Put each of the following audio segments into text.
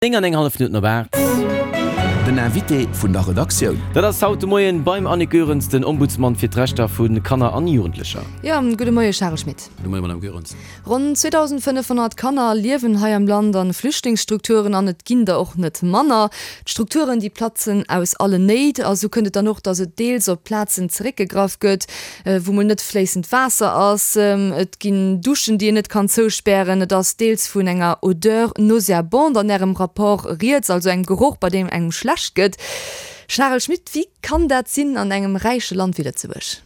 9 an eng hallef Minutten op 8. Den Invité vun der Redaktioun. Dat ass haut de Moien beim Annick Goerens, den Ombudsman fir d'Rechter vu Kanner an Jugendlecher. Jo, gudde Moie Charel Schmit. Gudde Moie Madame Goerens. Ronn 2.500 Kanner liewen hei am Land an Flüchtlingsstrukturen an et ginn der och net manner. D'Strukturen déi platzen aus allen Néit a sou kënnt et dann och, datt et deels op Plazen zeréckgegraff gëtt, wou mol net fléissend Waasser ass, et ginn Duschen, déi een net kann zouspären, et ass deels vun enger Odeur nauséabonde an Ärem Rapport rieds, also engem Geroch, bei deem engem schlecht gëtt. Charel Schmit, wéi kann dat sinn an engem räiche Land wéi Lëtzebuerg?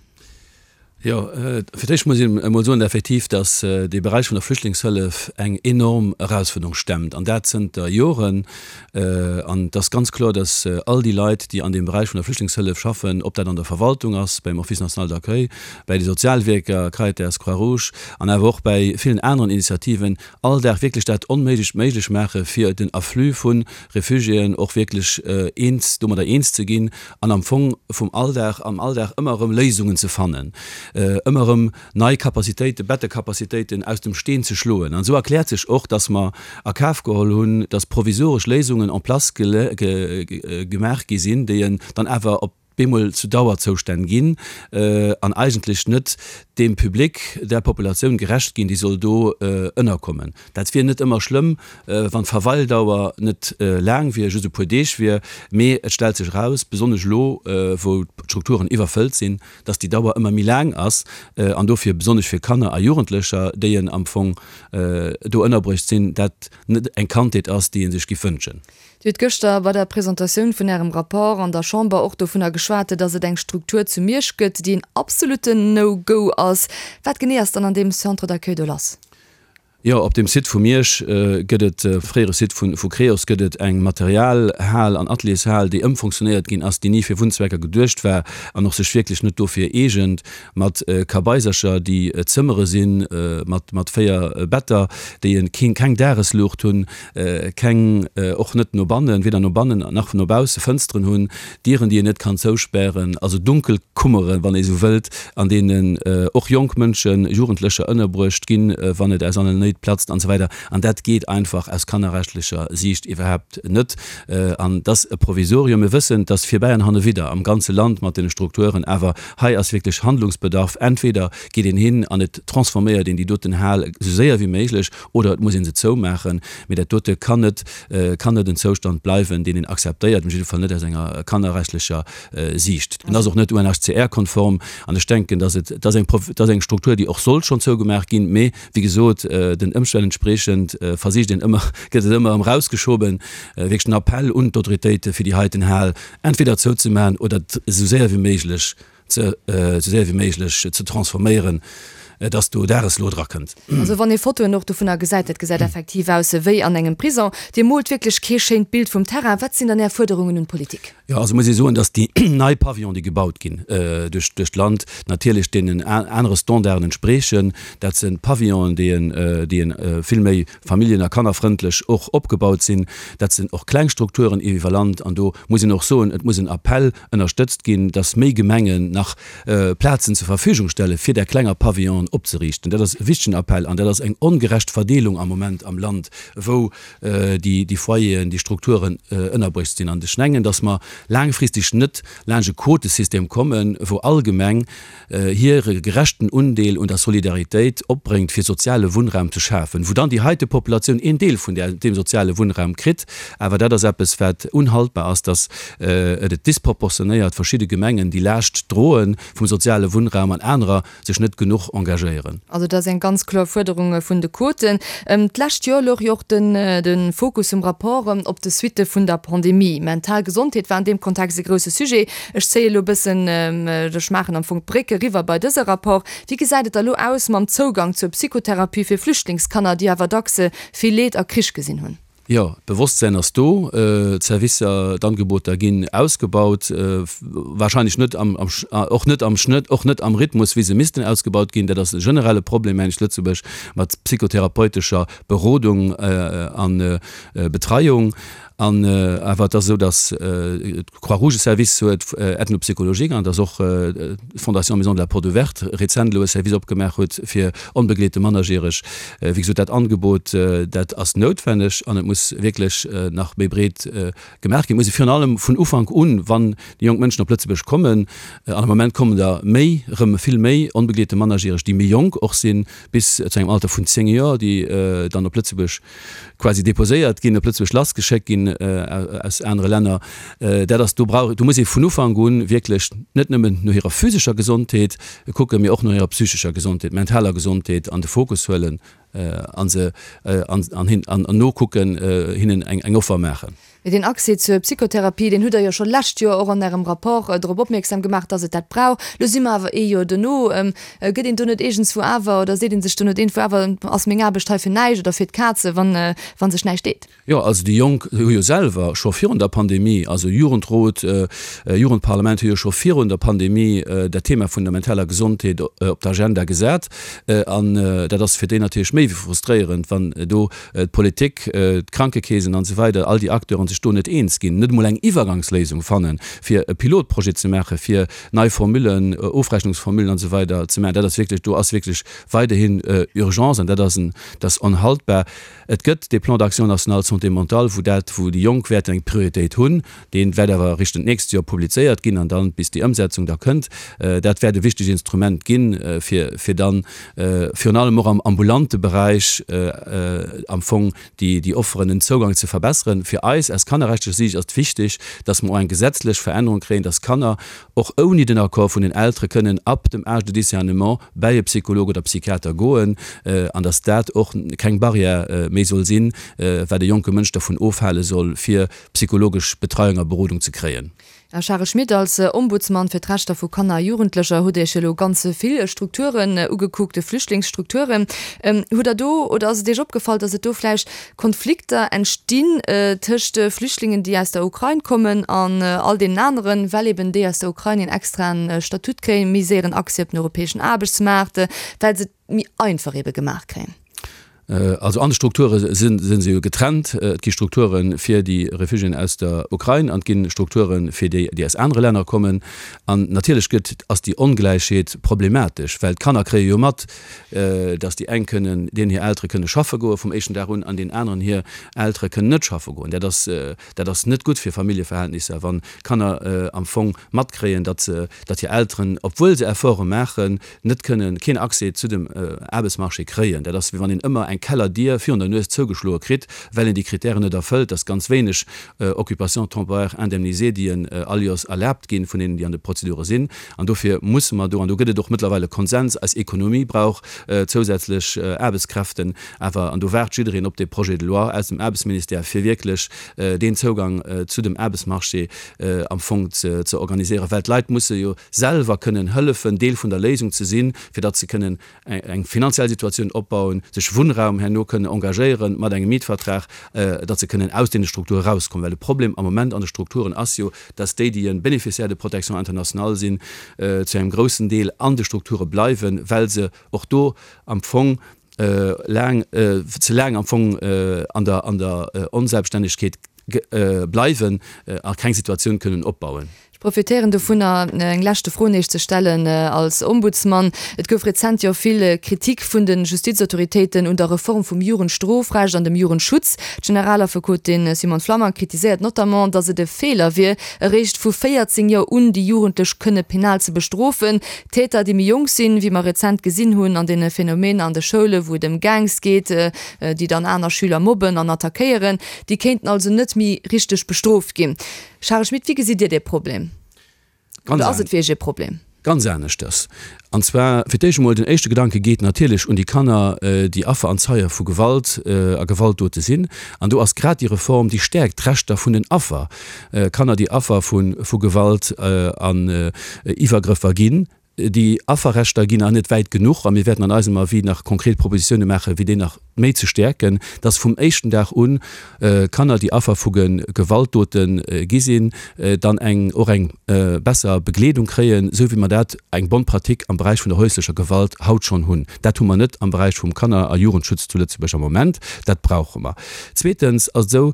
Jo, fir d'éischt muss een emol soen, effektiv, datt dee Beräich vun der Flüchtlingshëllef eng enorm Erausfuerderung stemmt, an dat zënter Joren. An et ass ganz kloer, dass all déi Leit, déi an deem Beräich vun der Flüchtlingshëllef schaffen, ob dat an der Verwaltung ass, beim Office national d'accueil, bäi de Sozialwierker, Caritas, Croix-Rouge an awer och bäi villen aneren Initiativen, all Dag wierklech dat Onméiglecht méiglech maache fir den Afflux vu Refugiéen och wierklech eens, domadder eens ze ginn an am Fong vum Alldag, am Alldag ëmmer erëm Léisungen ze fannen, ëmmer erëm nei Capacitéiten, Bettekapazitéiten aus dem Steen ze schloen. An esou erkläert sech och, dass mer a Kaf geholl hunn, dass provisoresch Léisungen en place gemaach gi sinn, déi dann awer op bemol zu Dauerzoustänn ginn an eigentlech net deem Public, där Populatioun gerecht ginn, déi soll do ënnerkommen. Dat wier net ëmmer schlëmm, wann d'Verweildauer net laang wier, just e puer Deeg wier, mee et stellt sech eraus, besonnesch elo, wou d'Strukturen iwwerfëllt sinn, dass déi Dauer ëmmer méi laang ass an dofir besonnesch fir Kanner a Jugendlecher, déi en am Fong do ënnerbruecht sinn, dat net eng Kandheet ass, déi ee sech giff wënschen. Dir hutt gëschter bei der Presentatioun vun Ärem Rapport an der Chamber och dovunner geschwat, dass et eng Struktur zu Miersch gëtt, déi en absolutten No-Go ass. Wat genee ass dann an deem Centre d'accueil do lass? Jo, op dem Site vu Miersch gëtt et, fréiere Site vu Creos, gëtt et eng Materialhal an Ateliershal, déi ëmfonctionnéiert ginn ass, déi ni fir Wunnzwecker geduecht war an och sech wierklech net dofir eegent, mat Kabaisercher, déi Zëmmere sinn, mat mat 4 Better, déi en keen keng Dagesluucht hunn, keng, och net no bannen, weder no bannen nach no bausse Fënsteren hunn, Dieren, déi een net kann zouspären, also dunkel Kummeren, wann ee sou wëllt, an deenen och jonk Mënschen, Jugendlecher ënnerbruecht ginn, wann et aus allen Néit platzt an esou weider. An dat geet einfach aus kannerrechtlecher Siicht iwwerhaapt net. An et ass e Provisorium. Mir wëssen, et ass virbäi an hannewidder am ganze Land mat deene Strukturen, awer hei ass wierklech Handlungsbedarf. Entweder geet een hin an et transforméiert een déi doten Hal esou séier wéi méiglech, oder et muss ee se zoumaachen. Mee dat dote kann net, kann net en Zoustand bleiwen, deen een akzeptéiert, op jidde Fall net aus enger kannerrechtlecher Siicht. En ass och net UNHCR-konform. An ech denken, dass et, dat ass eng, dat ass eng Struktur, déi och sollt schonn zougemaach ginn. Mee wéi gesot, den Ëmstänn entspriechend versicht een ëmmer, gëtt et ëmmer erëm erausgeschoben. Wierklech den Appell un d'Autoritéite fir déi heiten Hal entweder zouzemaachen oder esou séier wéi méiglech ze esou séier wéi méiglech ze transforméieren, dass do Dageslo dra kënnt. Also wann ee Fotoen och dovunner gesäit, dat gesäit effektiv aus wéi an engem Prison. Dir moolt wierklech kee schéint Bild vum Terrain. Wat sinn dann Är Fuerderungen un d'Politik? Jo, also muss ee soen, dass déi nei Pavillon, déi gebaut ginn duerch duerch d'Land, natierlech deenen anere Standarden entsprechen. Dat si Pavillonen, déi en déi en vill méi familljen a kannerfrëndlech och opgebaut sinn. Dat sinn och kleng Strukturen iwwer Land. An do muss een och soen, et muss en Appell ënnerstëtzt ginn, dass méi Gemengen nach Plazen zur Verfügung stelle fir där klenger Pavillonen opzeriichten. Dat ass e wichtegen Appell an dat ass eng ongerecht Verdeelung am Moment am Land, wou déi Foyeren, déi Strukturen ënnerbruecht sinn. An ech mengen, dass mer laangfristeg net laanscht e Quotesystem kommen, wou all Gemeng hire gerechten Undeel un der Solidaritéit opbréngt, fir soziale Wunnraum ze schafen, wou dann déi heite Populatioun een Deel vun deem soziale Wunnraum kritt. Awer dat ass eppes, wat unhaltbar ass, dass et et disproportionéiert verschidde Gemengen déi Laascht droe vum soziale Wunnraum an anerer sech net genuch engagéieren. Also dat ass eng ganz kloer Fuerderung vun de Quoten. D'lescht Joer louch jo och de Fokus vum Rapport op de Suitte vun der Pandemie. Mental Gesondheet war an deem Kontext e grousse Sujet. Ech zéie elo e bëssen, ech maachen am Fong d'Bréck eriwwer bei dëse Rapport. Wéi gesäit et da elo aus mam Zougang zur Psychotherapie fir Flüchtlingskanner, déi awer dacks vill Leed a Krich gesinn hunn? Jo, d'Bewosstsäin ass do, d'Servicer, d'Angeboter ginn ausgebaut, wahrscheinlech net am, och net am Schnëtt, och net am Rhythmus, wéi se missten ausgebaut ginn. Dat ass e generelle Problem, mengen ech, zu Lëtzebuerg mat psychotherapeutescher Berodung a Betreiung. An awer et ass esou, datt d'Croix-Rouge e Service huet ethno-psychologique an datt och d'Fondation Maison de la Porte Ouverte rezent elo e Service opgemaach huet fir onbegleete Mannerjäreg. Wéi gesot, dat Angebot, dat ass noutwenneg an et muss wierklech nach méi breet gemaach ginn. Et muss ee virun allem vun Ufank un, wann déi jonk Mënschen op Lëtzebuerg kommen, an am Moment kommen der méi, erëm vill méi onbegleete Mannerjäreg, déi méi jonk och sinn, bis zu engem Alter vun 10 Joer, déi dann op Lëtzebuerg quasi déposéiert ginn, op Lëtzebuerg lassgeschéckt ginn aus anere Länner, dat ass, do brauch, do muss ee vun Ufank un wierklech net nëmmen no hirer physescher Gesondheet kucken, mee och no hirer psychescher Gesondheet, mentaler Gesondheet an de Fokus huelen a se an hin an nokucken, hinnen eng Offer maachen. Mee deen Accès zur Psychotherapie, deen hutt Der jo scho lescht Joer och an Ärem Rapport drop opmierksam gemaach, dass et dat brauch. Elo si mer awer ee Joer dono. Gëtt een do net iergendswou awer, oder seet ee sech do net iergendwou awer, ass meng Aarbecht hei fir näischt oder fir d'Kaze, wann wa sech näischt deet? Jo, also déi Jonk hu jo selwer scho virun der Pandemie, also Jugendrot, Jugendparlament hu jo scho virun der Pandemie dat Thema vun der mentaler Gesondheet op d'Agenda gesat. An dat ass fir déi natierlech méi wéi frustréierend, wann do d'Politik, d'Krankekeesen an esou weider, all déi Acteuren sech do net eens ginn, net emol eng Iwwergangsléisung fannen, fir e Pilotprojet ze maachen, fir nei Formullen, Ofrechnungsformullen an esou weider ze maachen, dat ass wierklech, do ass wierklech weiderhin Urgence an dat ass en, dat ass onhaltbar. Et gëtt dee Plan d'action national santé mentale, wou dat, wou déi Jonk wäerten eng Prioritéit hunn, dee wäert awer eréischt d'nächst Joer publizéiert ginn an dann, bis déi Ëmsetzung da kënnt, dat wäert e wichtegt Instrument ginn, fir, fir dann virun allem och am ambulante Beräich am Fong déi, déi Offeren, den Zougang ze verbesseren. Fir eis aus kannerrechtlecher Siicht ass et wichteg, dass mer och eng gesetzlech Verännerung kréien, dass Kanner och ouni den Accord vun den Eltere kënnen ab dem Âge de discernement bäi e Psycholog oder Psychiater goen an dass dat och keng Barrière méi soll sinn, wat e jonke Mënsch dervun ofhale soll, fir psychologesch Betreiung a Berodung ze kréien. Här Charel Schmit, als Ombudsman fir d'Rechter vu Kanner a Jugendlecher hutt Iech elo ganz vill Strukturen ugekuckt, Flüchtlingsstrukturen. Hutt Der do, oder ass et Iech opgefall, datt et do vläicht Konflikter entstinn tëscht Flüchtlingen, déi aus der Ukrain kommen an all deenen aneren, well eben déi aus der Ukrain een extraen Statut kréien, méi séieren Accès op den europäeschen Aarbechtsmaart, well se et méi einfach ebe gemaach kréien? Also an de Strukture si se jo getrennt. Et gi Strukture fir déi Refugiéen aus der Ukrain an et gi Strukture fir déi, déi aus anere Länner kommen. An natierlech gëtt, ass déi Ongläichheet problematesch, well d'Kanner kréie jo mat, datt déi eng kënnen, deenen hir Eltere kënne schaffe goe vum éischten Dag un an deenen aneren hir Eltere kënnen net schaffe goen. Dat ass, dat ass net gutt fir Familljeverhältnisser, wann Kanner am Fong matkréien, datt se, datt hir Elteren, obwuel se Efforte maachen, net kënnen, keen Accès zu dem Aarbechtsmarché kréien. Dat ass, wéi wann een ëmmer eng Kellerdier virun der Nues zougeschloe kritt, well een déi Kritären net erfëllt. Dat ass ganz wéineg Occupations temporaires indemnisées, déi en all Joers erlaabt ginn, vun deenen, déi an de Prozedure sinn. An dofir musse mer do, an do gëtt et och mëttlerweil e Konsens, eis Ekonomie brauch zousätzlech Aarbechtskräften awer, an do waart jiddereen op dee Projet de loi aus dem Aarbechtsministère, fir wierklech deen Zougang zu dem Aarbechtsmarché am Fong ze organiséieren, well d'Leit musse jo selwer kënnen hëllefen, Deel vun der Léisung ze sinn, fir datt se kënnen eng finanziell Situatioun opbauen, sech Wunnraum herno kënnen engagéieren mat engem Mietvertrag, datt se kënnen aus deene Strukture erauskommen. Well de Problem am Moment an de Strukturen ass jo, datt déi, déi e Bénéficiaire de protection internationale sinn, zu engem groussen Deel an de Strukture bleiwen, well se och do am Fong laang, ze laang am Fong an der, an der Onselbststännegkeet bleiwen a keng Situatioun kënnen opbauen. Ech profitéieren dovunner, eng leschte Fro nees ze stellen als Ombudsmann. Et gouf rezent jo vill Kritik vun de Justizautoritéiten un der Reform vum Jugendstrofrecht an dem Jugendschutz. D'Generalaffekotin Simone Flammang kritiséiert notamment, datt et e Feeler wier, eréischt vu 14 Joer un déi Jugendlech kënne penal ze bestrofen. Täter, déi méi jonk sinn, wéi mer rezent gesinn hunn an deene Phänomener an de Schoule wou et ëm Gangs geet, déi dann aner Schüler mobben an attackéieren, déi kéinten also net méi richteg bestrooft ginn. Charel Schmit, wéi gesitt Dir dee Problem? Oder ass et fir Iech ee Problem? Ganz aneschters. An zwar fir d'éischt emol, den éischte Gedanke geet natierlech un déi Kanner, déi Affer an Zeie vu Gewalt a Gewaltdote sinn. An do ass grad déi Reform, déi stäerkt d'Rechter vun den Affer, Kanner, déi Affer vu Gewalt an Iwwergrëffer ginn. Déi Afferrechter ginn nach net wäit genuch a mir wäerten an eisem Avis nach konkret Propositioune maachen, wéi déi nach. méi ze stäerken, dass vum éischten Dag un Kanner, déi Affer vu Gewaltdote gi sinn, dann eng och eng besser Begleedung kréien, esou wéi mer dat, eng bonne pratique, am Beräich vun der häuslecher Gewalt haut schonn hunn. Dat hu mer net am Beräich vum Kanner a Jugendschutz zu Lëtzebuerg am Moment. Dat brauche mer. Zweetens ass et esou,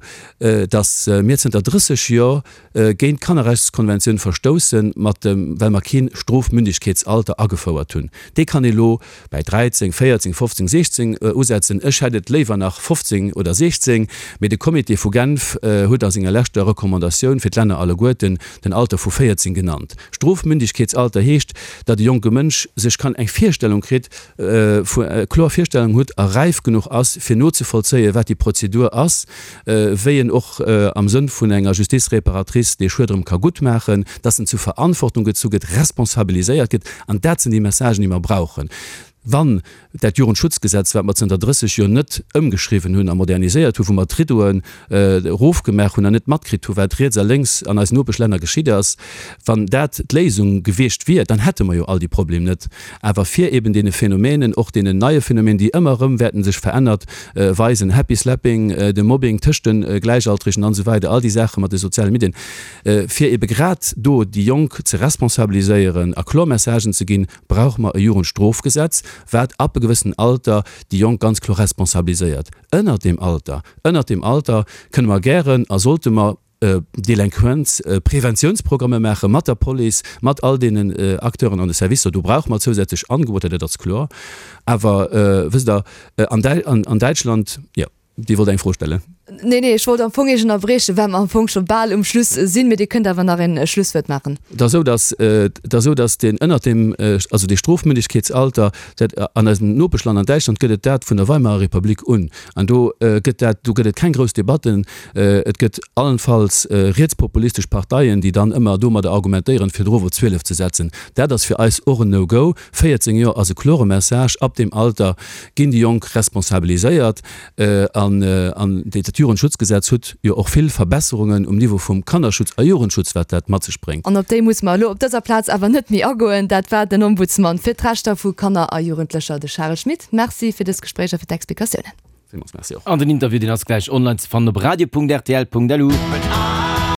dass mir zënter 30 Jor géint d'Kannerrechtskonventioun verstoussen, mat dem, well mer keen Strofmündigkeetsalter agefouert hunn. Dee kann ee lo bäi 13, 14, 15, 16 usetzen. Ech hätt et léiwer nach 15 oder 16, mee de Comité vu Genf huet a senger leschter Recommandatioun fir d'Länner alleguerten den Alter vu 14 genannt. Strofmündigkeetsalter heescht, datt e jonke Mënsch sech kann eng Virstellung kritt, vu, kloer Virstellung huet a räif genuch ass, fir nozevollzéien, wat déi Prozedur ass, wéi en och am Sënn vun enger Justice réparatrice dee Schued erëm ka guttmaachen, dass en zu Verantwortung gezu gëtt, responsabiliséiert gëtt. An dat sinn déi Messagen, déi mer brauchen. Wann dat Jugendschutzgesetz, wat mer zënter 30 Joer net ëmgeschriwwen hunn a moderniséiert hunn, wou mer d'Riddoen erofgemaach hunn an net matkritt hunn, wat riets a lénks an eisen Nopeschlänner geschitt ass, wann dat d'Léisung gewiescht wier, dann hätte mer jo all déi Problem net. Awer fir eben deene Phänomenen, och deenen neie Phänomenen, déi ëmmer erëm wäerten sech verännert weisen, Happy Slapping, de Mobbing tëscht de Gläichaltregen an esou weider, all déi Saache mat de soziale Medien, fir ebe grad do déi Jonk ze responsabiliséieren a kloer Messagen ze ginn, brauche mer e Jugendstrofgesetz, wat ab e gewëssenen Alter déi Jonk ganz kloer responsabiliséiert. Ënnert deem Alter, ënnert deem Alter kënne mer gären a sollte mer Delinquenz-Preventiounsprogramme maache mat der Police, mat all deenen Acteuren an de Servicer. Do brauche mer zousätzlech Angeboter, dat ass kloer. Awer wësst Der, an Däitschland, jo, Dir wollt eng Fro stellen. Nee, nee, ech wollt am Fong Iech ënnerbriechen, well mer am Fong scho bal um Schluss sinn. Mee Dir kënnt awer nach e Schlusswuert maachen. Et ass esou, datt, et ass esou, datt deen ënnert deem, also dee Strofmündigkeetsalter, dat an eisem Nopeschland, an Däitschland gëtt et dat vun der Weimarer Republik un. An do gëtt dat, do gëtt et keng grouss Debatten. Et gëtt allenfalls rietspopulistesch Parteien, déi dann ëmmer domadder argumentéieren, fir erof op 12 ze setzen. Dat ass fir eis och en No-Go. 14 Joer ass e klore Message, Ab deem Alter ginn déi Jonk responsabiliséiert. An dat Jugendschutzgesetz huet jo och vill Verbesserungen um Niveau vum Kannerschutz a Jugendschutz, wat dat mat sech bréngt. An op déi muss mer elo op dëser Plaz awer net méi agoen. Dat war den Ombudsman fir d'Rechter vu Kanner a Jugendlecher, de Charel Schmit. Merci fir dës Gespréich a fir d'Explikatiounen. Villmools Merci och. An den Interview deen ass gläich online ze fannen op radio.rtl.lu.